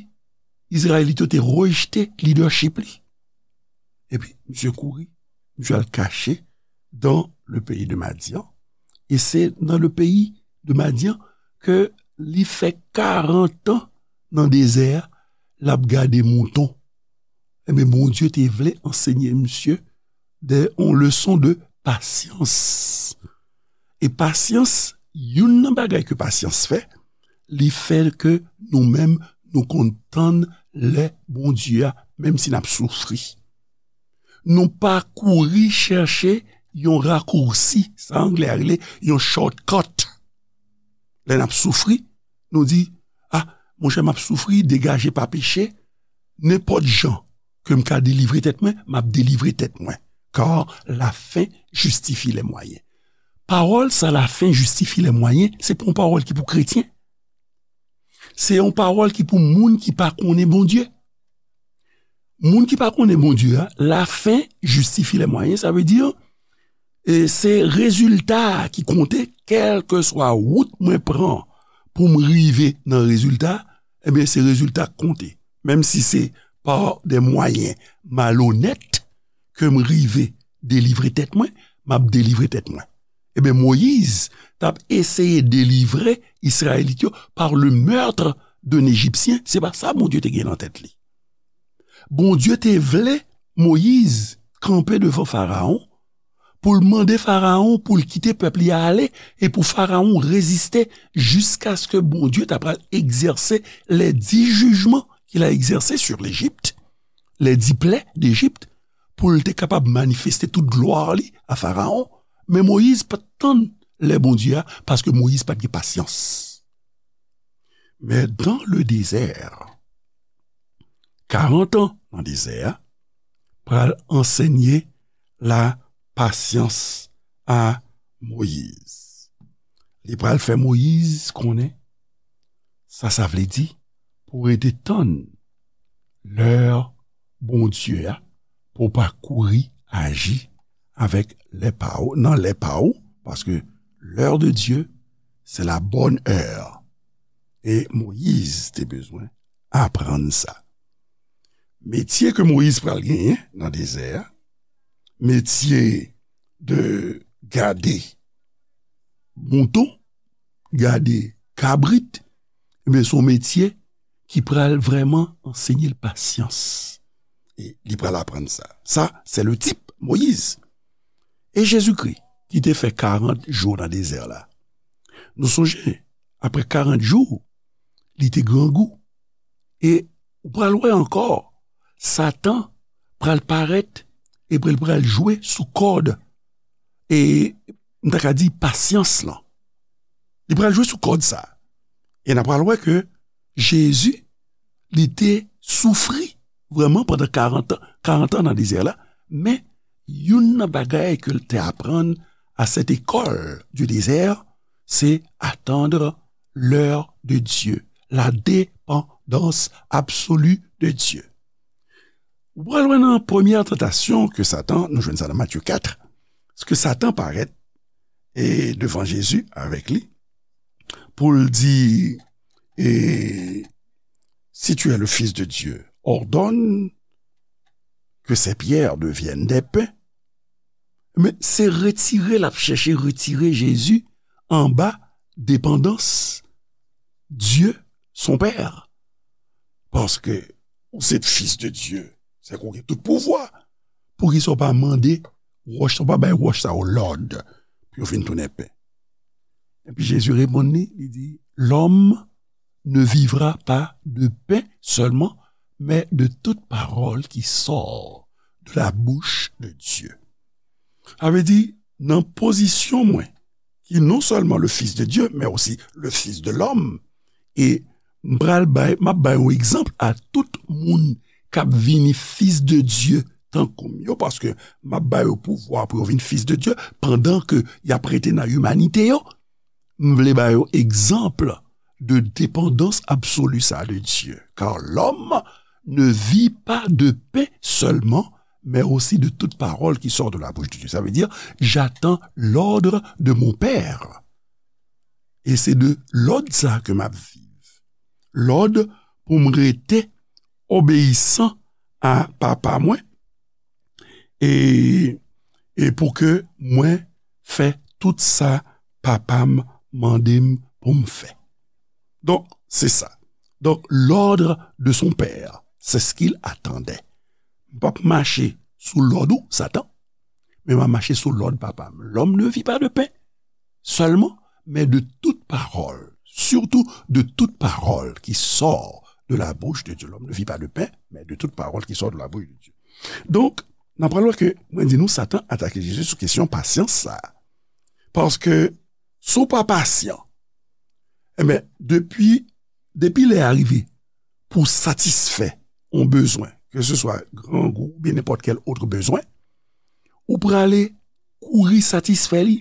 Izrayelit yo te rejte lidèchip li. Epi, misye kouri, misye al kache dans le pays de Madian. E se nan le pays de Madian ke li fè karant an nan dezè a, l ap gade mouton. Ebyen, Bondye te vle ansenye misye de, yon leson de pasyans. E pasyans, youn nan bagay ke pasyans fè, li fè ke nou menm, nou konn tann lè Bondye a, menm si n ap soufri. Nou pa kouri chèche yon rakousi, sa anglè a rele yon shortcut. Lè n ap soufri, nou di, a, monchè, m ap soufri, degaje pa peche, nenpòt jan ke m ka delivre tèt mwen, m ap delivre tèt mwen. Car la fin justifie les moyens. Pawòl sa, la fin justifie les moyens, se pa yon pawòl ki pou kretyen. Se yon pawòl ki pou moun ki pa konnen Bondye. Moun ki pa konnen Bondye a, la fin justifie les moyens, sa vle di, e se rezilta a ki konte, kèlkeswa wout mwen pran pou m rive nan rezilta, ebyen, se rezilta k konte. Menm si se par des moyens malhonnêtes ke m rive delivre tèt mwen, m ap delivre tèt mwen. Ebyen, Moyiz t ap eseye delivre Izrayelit yo par le meurtre d'un Égyptien. Se pa sa Bondye te gen nan tèt li. Bondye te vle Moyiz kanpe devan Farawon pou l mande Farawon pou l kite pèp li a ale e pou Farawon reziste jiskaske Bondye ta pral egzèse les dix jugements qu'il a exercés sur l'Égypte, les dix plaies d'Égypte, pou l te kapab manifeste tout glwa li a Farawon. Men Moyiz pa t tann lè Bondye a, paske Moyiz pa t gen pasyans. Men dans le désert, karant an nan dezè a, pral ansenye la pasyans a Moyiz. Li pral fè Moyiz konnen sa sa vle di pou rete tann lè Bondye a, pou w pa kouri aji avèk lè pa w, nan lè pa w, paske l'heure de Dieu, c'est la bonne heure. E Moyiz te bezwen aprann sa. metye ke Moyiz pral genyen nan dezè a, metye de gade mouton, gade kabrit, ebyen, se yon metye ki pral vrèman ansenye l pasyans. E li pral aprann sa. Sa, c'est le type, Moyiz. E Jezikri, ki te fè karant jou nan dezè la. Nou sonje, apre karant jou, li te grangou. E ou pral wè ankò, Satan pral parèt epi l pral jwe sou kòd, e m ta ka di pasyans lan. Li pral jwe sou kòd sa. E n a pral wè ke Jezi, li te soufri vrèman pandan karant an, karant an nan dezè la, men youn nan bagay ke l te aprann à cette école du désert, c'est attendre l'heure de Dieu, la dépendance absolue de Dieu. Ou pral wè nan premyè tantasyon ke Satan, nou jwenn sa nan Matye kat, ke Satan parèt e devan Jezi avèk li, pou l di, e, si tu es le Fils de Dieu, ordonne que ces pierres deviennent des pains. Men se retire, l ap chèche retire Jezi anba depandans Dye, son Pè. Paske ou se fis de Dye, se ke w gen tout pouvwa. Poukisa w pa mande wòch, w pa bay wòch sa yo lòd pou yo vin tounen pen? Epi Jezi reponn li, li di, l'homme ne vivra pas de pain seulement, mais de toute parole qui sort de la bouche de Dieu. Sa vle di, nan pozisyon mwen, ki non sèlman le Fils de Dieu, mais aussi le Fils de l'homme, e m pral bay, m ap bay yon egzanp a tout moun k ap vini fis de Dye tankou m yo, paske m ap ba yo pouvwa pou yo vin fis de Dye, pandan ke y ap rete nan imanite yo. M vle ba yo egzanp de depandans absoli sa de Dye. Car l'homme ne vit pas de pain seulement, mais aussi de toute parole qui sort de la bouche de Dieu. Sa vle di, j'attends l'ordre de mon Père. E se de lòd sa ke m ap viv. Lòd pou m rete obeyisan a Papa mwen, e, e pou ke mwen fè tout sa Papa m mande m pou m fè. Donk, se sa. Donc, l'ordre de son Père, c'est ce qu'il attendait. M p ap mache sou lòd ou, Satan, men m ap mache sou lòd Papa m. L'homme ne vit pas de pain seulement, mais de toute parole, surtout de toute parole qui sort de la bouche de Dieu. L'homme ne vit pas de pain, mais de toute parole qui sort de la bouche de Dieu. Donk, n ap pral wè ke, mwen di nou, Satan atake Jezi sou kesyon pasyans sa. Paske, si w pa pasyan, enben, depi, depi lè a rive pou satisfè yon bezwen, ke se swa grangou oubyen nenpòt kèl òt bezwen, ou prale kouri satisfè li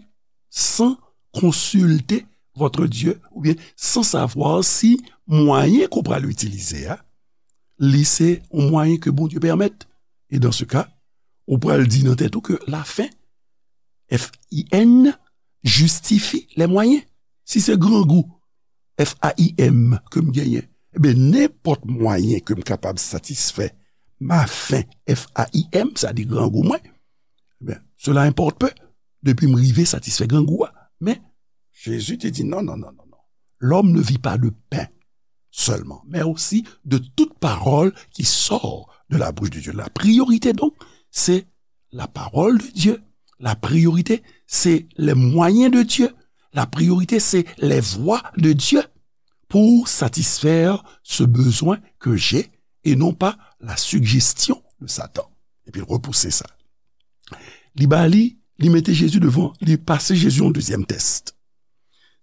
san konsilte votre Dieu, oubyen san savwa si mwayen ke w pral itilize a, li se yon mwayen ke Bondye pèmèt. E dans ce cas, ou pral di nan tèt ou ke la fin, F I N, justifie les moyens. Si se grangou, F A I M, ke m genyen, ebyen, nenpòt mwayen ke m kapab satisfè ma faim, F A I M, sa di grangou mwen, ebyen, cela importe peu, depi m rive satisfè grangou a. Men, Jezi te di, non, non, non, non, non. L'homme ne vit pas de pain seulement, mais aussi de toute parole qui sort de la bouche de Dieu. La priorité, donc, c'est la parole de Dieu. La priorité, c'est les moyens de Dieu. La priorité, c'est les voies de Dieu pour satisfaire ce besoin que j'ai et non pas la suggestion de Satan. Epi l repouse sa. Li ba li, li mete Jezi devan, li pase Jezi yon dezyèm tès.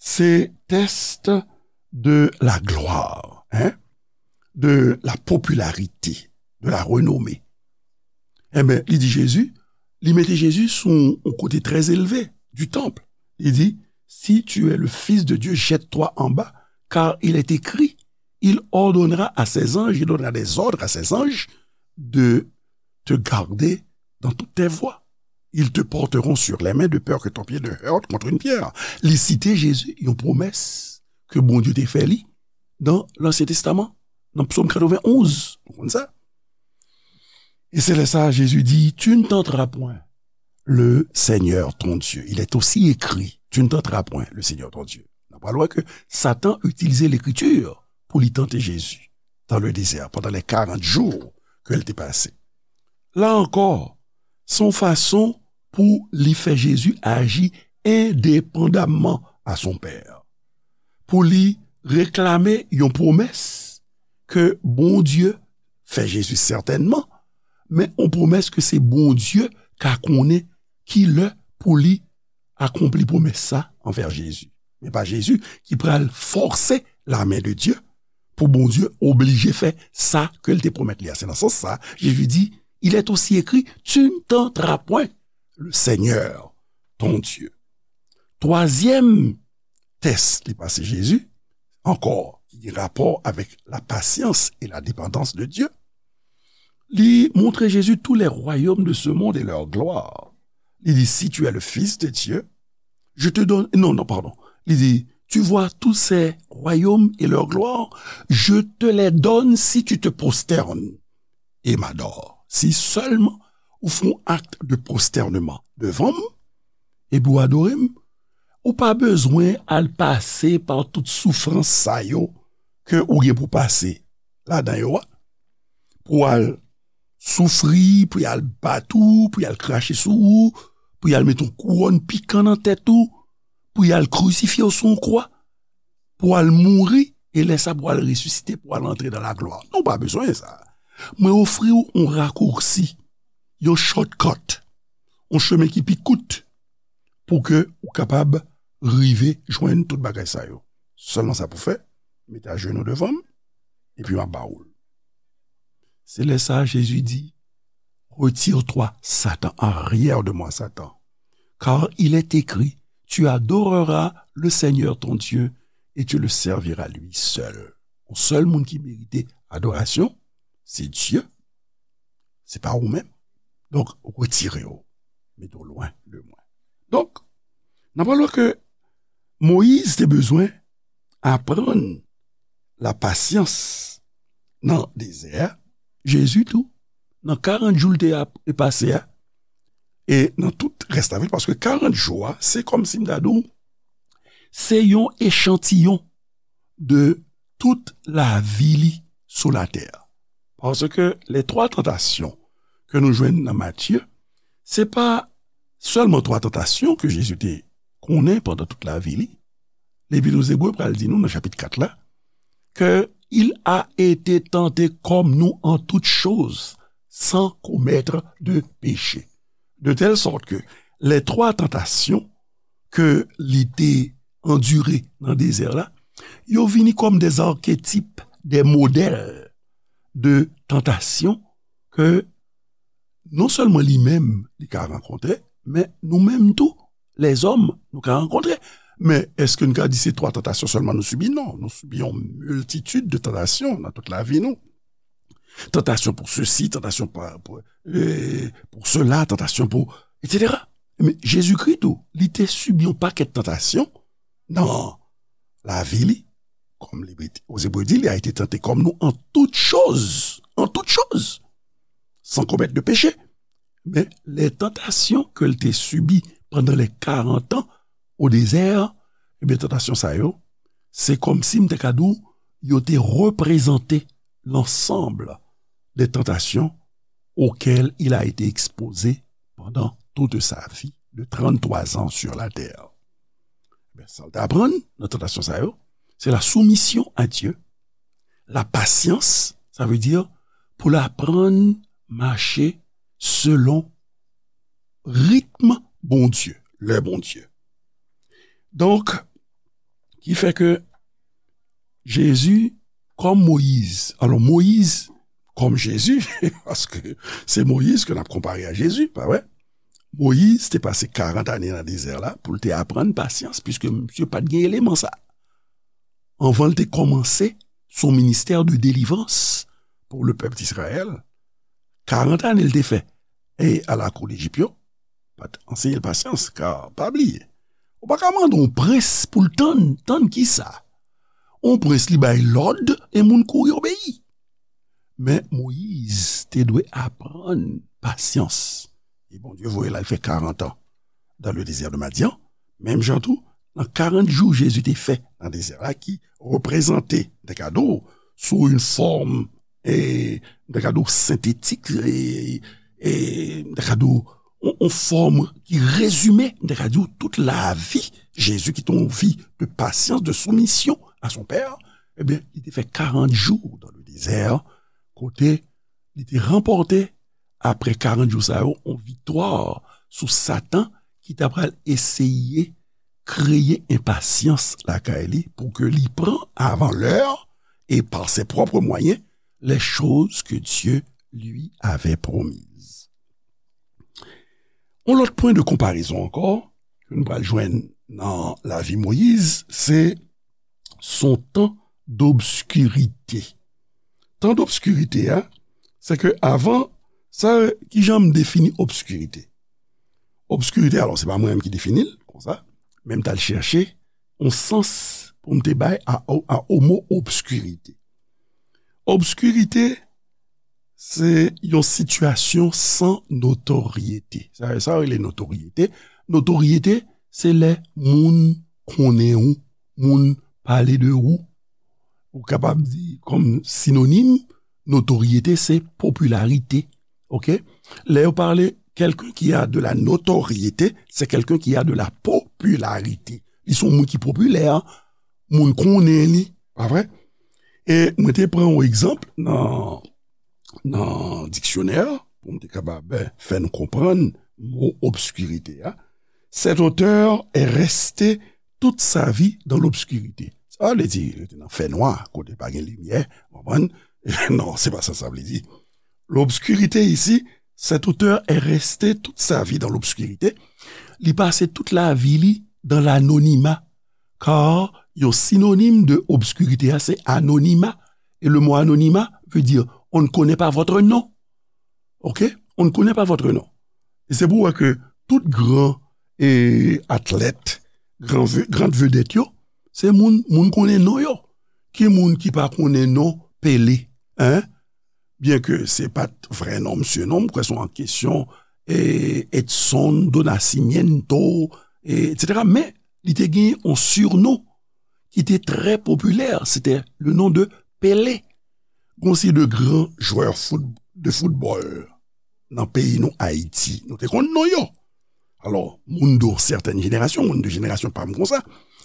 Se tès de la gloire, hein, de la popularité, de la renommée. Enben, li di Jezi, li mete Jezi sou yon kote trè elve du temple. Li di, si tu es le Fils de Dieu, jette-toi en bas, car il est écrit, il ordonnera à ses anges, il donnera des ordres à ses anges de te garder dans toutes tes voies. Ils te porteront sur les mains de peur que ton pied ne heurte contre une pierre. Li site Jezi, yon pwomès ke Bondye te fè li nan Lansyen Testaman, nan Psòm katrevenn onz. Ou konn sa? Et c'est là ça, Jésus dit, tu ne tenteras point le Seigneur ton Dieu. Il est aussi écrit, tu ne tenteras point le Seigneur ton Dieu. N ap pral wè ke Satan itilize Lekriti pou li tante Jezi dans le désert pendant les quarante jours ke l te pase. La ankò, se yon fason pou li fè Jezi aji endepandamman a son Pè. Pou li reklame yon pwomès ke Bondye fè Jezi sètènman, men yon pwomès ke se Bondye ka konnen ki lè pou li akonpli pwomès sa anvè Jezi. Men pa Jezi ki pral fòse lamen de Dye pou Bondye oblije fè sa ke l te pwomèt li a. Se nan sans sa, Jezi di, il est aussi écrit, tu ne tenteras point le Seigneur ton Dieu. Twazyèm tès li pase Jezi, ankò, ki gen rapò avèk la patience et la dépendance de Dieu, li montre Jezi tous les royaumes de ce monde et leur gloire. Li di, si tu es le Fils de Dieu, je te donne, non, non, pardon. Li di, tu vois tous ces royaumes et leur gloire, je te les donne si tu te prosternes et m'adores. Si sèlman ou fè yon ak de pwostènman devan m, epi w adore m, ou pa bezwen al pase pa tout soufrans sa yo ke ou gen pou pase ladan yo a, pou al soufri, pou y al bat ou, pou y al krache sou ou, pou y al met yon kouwòn pikan nan tèt ou, pou y al krisifye w sou yon kwa, pou al mouri, e lè sa pou al resisite, pou al antre nan laglwa. Non, w pa bezwen sa. Mwen ofri w yon rakousi, yon shortcut, yon chemen ki pi kout, pou ke ou kapab rive jwenn tout bagay sa yo. Sèlman sa pou fè, mete ajenou devan m, epi m ap ba ou l. Se lè sa a, Jezi di, retire-toi, Satan, arrière de moi, Satan. Car il est écrit, tu adoreras le Seigneur ton Dieu et tu le serviras lui seul. Yon sèl moun ki merite adorasyon, se Dye, se pa ou menm. Donk, retire w, mete w lwen de mwen. Donk, n ap wè ke Moyiz te bezwen aprann la pasyans nan dezè a, Jezi tou, nan karant jou l te ap-, te pase a, e nan tout rès lavi l, paske karant jou a, se kòmsi m ta di w, se yon echantiyon de tout lavi li sou latè. Paske les trois tentations ke nou jwenn nan Matye, se pa sèlman twa tantasyon ke Jezi te konnen pandan tout lavi li. Lepit aux Hébreux pral di nou nan chapit kat la, ke il a été tenté comme nous en toutes choses, sans commettre de péché. De telle sorte que les trois tentations ke li te andire nan dezè la, yo vini kòm des archétypes, des modèles de tantasyon ke non sèlman li menm li ka rankontre, men nou menm tou, lèzòm, nou ka rankontre. Men èske n ka di se twa tantasyon sèlman nou sibi? Non, nou sibi yon miltitid de tantasyon nan tout lavi nou. Tantasyon pou sesi, tantasyon pa-, pou, e, pou sela, tantasyon pou, etsetera. Men Jezikri tou, li te sibi yon pakèt tantasyon nan lavi li, kòm Lepit aux Hébreux di, il a été tenté comme nous en toutes choses, en toutes choses, sans commettre de péché. Men les tentations ke l te sibi pandan les karant an o dezè, ebyen, tantasyon sa yo, se kòmsi m te ka di w, yo te reprezante l'ensemble des tentations auxquelles il a été exposé pendant toute sa vie de trente-trois ans sur la terre. Ben, sa l te aprann nan tantasyon sa yo, se la soumission à Dieu, la patience, ça veut dire pou l aprann mache selon ritm Bondye, lè Bondye. Donk, ki fè ke Jezi, kòm Moyiz, alò Moyiz, kòm Jezi, paske se Moyiz ke n ap konpare a Jezi, pa vre? Moyiz te pase karant ane nan dezè la pou l te aprann pasyans, piske misye pa t gen eleman sa. Anvan l te kòmanse son ministè de délivrance pour le peuple d'Israël, karant ane l te fè e a lakou Lejip yo, pa t anseye l pasyans, ka pa bliye. Ou pa ka mande yon prens pou l tann, tann kisa? Yon prens li bay lòd e moun kouri obeyi. Men Moyiz te dwe aprann pasyans. E Bondye voye l al fè karant an dans le désert de Madian. Menm jan tou, nan karant jou Jezi te fè nan dezè a, ki reprezante, m ta ka di w, sou yon fòm, e, m ta ka di w, sentetik, e, e, m ta ka di w, yon, yon fòm ki rezime, m ta ka di w, tout lavi Jezi, ki te yon vi de pasyans, de soumisyon à son Père, ebyen, li te fè karant jou dans le désert, kote li te ranpòte, apre karant jou sa yo, yon viktwa sou Satan ki ta pral eseye kreye enpasyans lakay li pou ke li pran avan lè e par ses propres moyens les choses que Dieu lui avait promises. Yon lòt pwen de konparezon ankò ke nou pral jwenn nan lavi Moyiz, se son tan dobskirite. Tan dobskirite a, se ke avan, sa, kijan m defini obskirite? Obskirite, alò, se pa mwen menm ki defini l konsa, men m t al chèche yon sans pou m te bay a, a, a o mo obskirite. Obskirite, se yon sitiyasyon san notoryete. Sa, sa yo rele notoryete. Notoryete, se lè moun konnen ou, moun pale de ou. Ou kapab di kòm sinonim, notoryete, se popilarite. Oke? Lè yo pale quelqu'un qui a de la notoriété, c'est quelqu'un qui a de la popularité. Li se yon moun ki popilè, moun konnen li, pa vre? E mwen te pran yon egzanp nan, nan diksyonè, pou m te kapab, eh, fè nou konprann mo obskirite a. Cet auteur est resté toute sa vie dans l'obscurité. Sa vle di, li te nan fènwa, kote pa gen limyè, w konprann? Non, se pa sa sa vle di. L'obscurité ici, cet auteur est resté toute sa vie dans l'obscurité. Li pase tout lavi li dans l'anonymat, car yon sinonim de obskirite a, se anonima. E le mo anonima veut dire, on ne connaît pas votre nom. Oke? On ne connaît pas votre nom. E se pou wè ke tout gran, e, atlèt, gran ve-, gran vedèt yo, se moun, moun konnen non yo. Ki moun ki pa konnen non Pele, en? Byen ke se pa t vrè non misye non, m kwè se yon kesyon, e, Edson do Nascimento, e, etsetera. Men, li te gen yon surnon ki te trè popilè, se te le non de Pele. Gon seri de gran jwè fout-, de foutbòl nan peyi nou, Ayiti. Nou te konn non yo. Alò, moun de sètèn jenerasyon, moun de jenerasyon pa m konsa,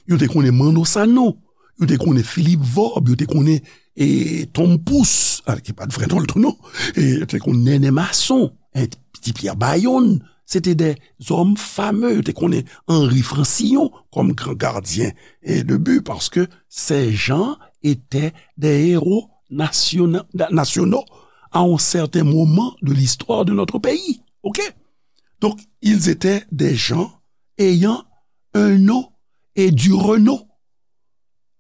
yo te konnen Manno Sanon, yo te konnen Philippe Vorbe, yo te konnen, e, Tom Pouce, a, ki pa t vrè non l tou non, e, yo te konnen Nènè Mason, e, Ti Pyè Bayonn, se te de zòm fame, yo te konnen Henri Francillon kòm gran gadyen, e, de bi, paske ces gens étaient des héros nationaux, nationaux à un certain moment de l'histoire de notre pays. Oke? Donc, ils étaient des gens ayant un nom et du renom.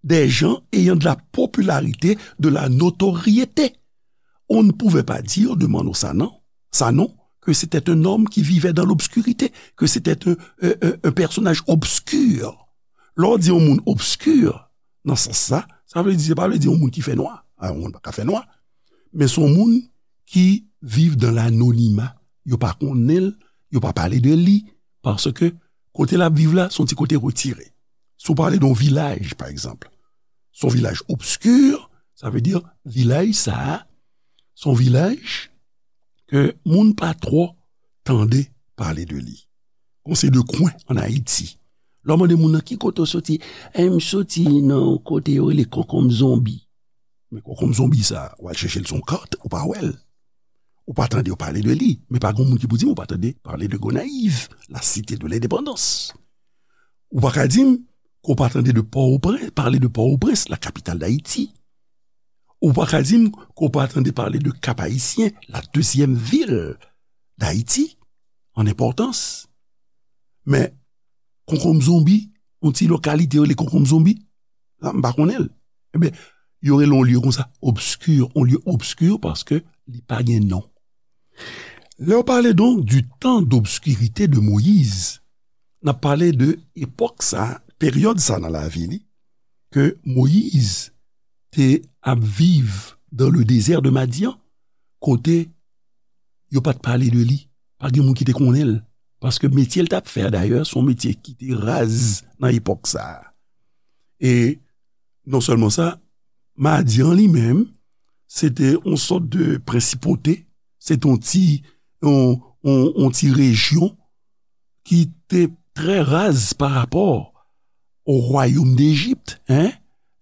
Des gens ayant de la popularité, de la notoriété. On ne pouvait pas dire de Manno Sanon, Sanon, que c'était un homme qui vivait dans l'obscurité, que c'était un, un, un, un personnage obscur. Lè w di yon moun obskir, nan sans sa, sa vle di, se pa vle di yon moun ki fè nwa. A, yon moun pa ka fè nwa. Men se yon moun ki viv dans l'anonymat. Yo pa konnen l, yo pa pale de li, paske kote l ap viv la, se yon ti kote retire. Si w pale de yon vilaj, pa egzanp, se yon vilaj obskir, sa vle di vilaj sa a, se yon vilaj ke moun pa twò tande pale de li. Gon seri de kwen ann Ayiti. Lè w mande moun nan ki kote w soti, e m soti nan yon kote yo rele Konkonm Zonbi. Men Konkonm Zonbi sa, w al chèche l sou yon kat, ou pa wè l. Ou pa tande yo pale de li, men pa gen moun ki pou di m ou pa tande pale de Gonayiv, la cité de l'indépendance. Ou pa ka di m ke w pa tande de Pòtoprens, pale de Pòtoprens, la capitale d'Haïti. Ou pa ka di m ke w pa tande pale de Cap-Haïtien, la deuxième ville d'Haïti en importance. Men Konkonm Zonbi, yon ti lokalite yo rele Konkonm Zonbi, sa m pa konnen l. Ebyen, yo rele yon lye konsa obskir, yon lye obskir paske li pa gen non. Lè w pale donc du temps d'obscurité de Moïse, n ap pale de epòk sa, peryòd sa nan lavi li, ke Moyiz te ap viv dans le désert de Madian, kote yo pa t pale de li. Pa gen moun ki te konnen l. Paske metye l t ap fè a, dayè, se yon metye ki te raz nan epòk sa a. E non sèlman sa, Madyan li menm, se te yon sòt de prensipote, se te yon ti, yon, yon, yon ti rejyon ki te trè raz pa rapò o wayòm d'Égypte, hein?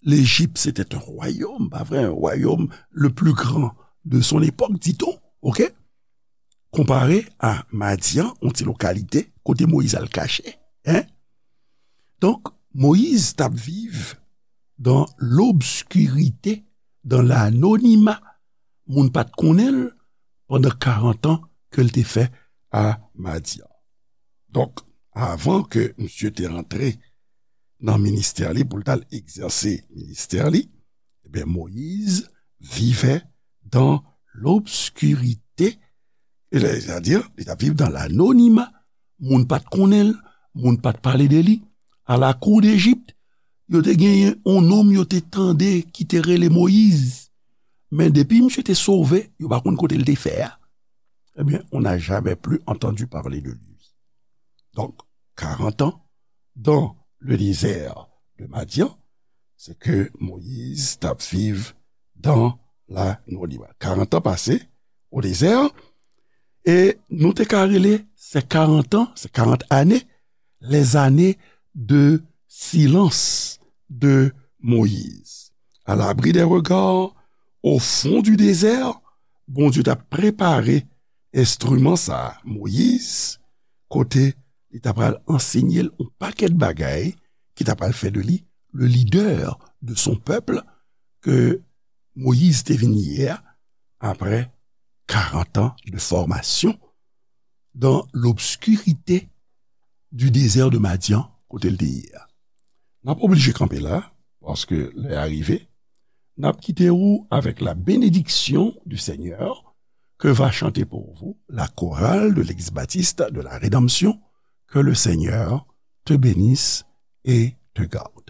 L'Égypte, c'était un royaume, pa vre, un royaume le plus grand de son époque, dit-on, ok? Konpare a Madyan, yon ti lokalite, kote Moyiz al kache, hein? Donk, Moyiz t ap viv dans l'obscurité, dans l'anonymat. Moun pa t konnen l pandan karant an ke l te fè a Madyan. Donk, avan ke misye te rantre nan ministè li, pou l t al egzèse ministè li, ebyen, Moyiz vivait dans l'obscurité. Sètadi, li t ap viv dans l'anonymat. Moun pa t konnen l, moun pa t pale de li. A la kou d'Égypte, yo te genyen yon nonm yo te tande ki te rele Moyiz. Men depi misye te sove, yo pa konn kote l te fè a. Ebyen, on n'a jamais plus entendu parler de lui. Donc, quarante ans dans le désert de Madian, c'est que Moïse t ap viv dans l'anonymat. Quarante ans passés au désert, e nou te ka rele ces quarante ans, ces quarante années, les années de silence de Moïse. À l'abri des regards, au fond du désert, Bondye t ap prepare enstriman sa a, Moyiz, kote li t ap pral ansenye l yon pakèt bagay ki t ap pral fè de li le leader de son peuple ke Moyiz te vin ye a, après quarante ans de formation dans l'obscurité du désert de Madian, kote l te ye a. N ap oblije kanpe la, paske lè a rive. N ap kite ou avec la bénédiction du Seigneur que va chanter pour vous la chorale de l'Église baptiste de la Rédemption. Que le Seigneur te bénisse et te garde.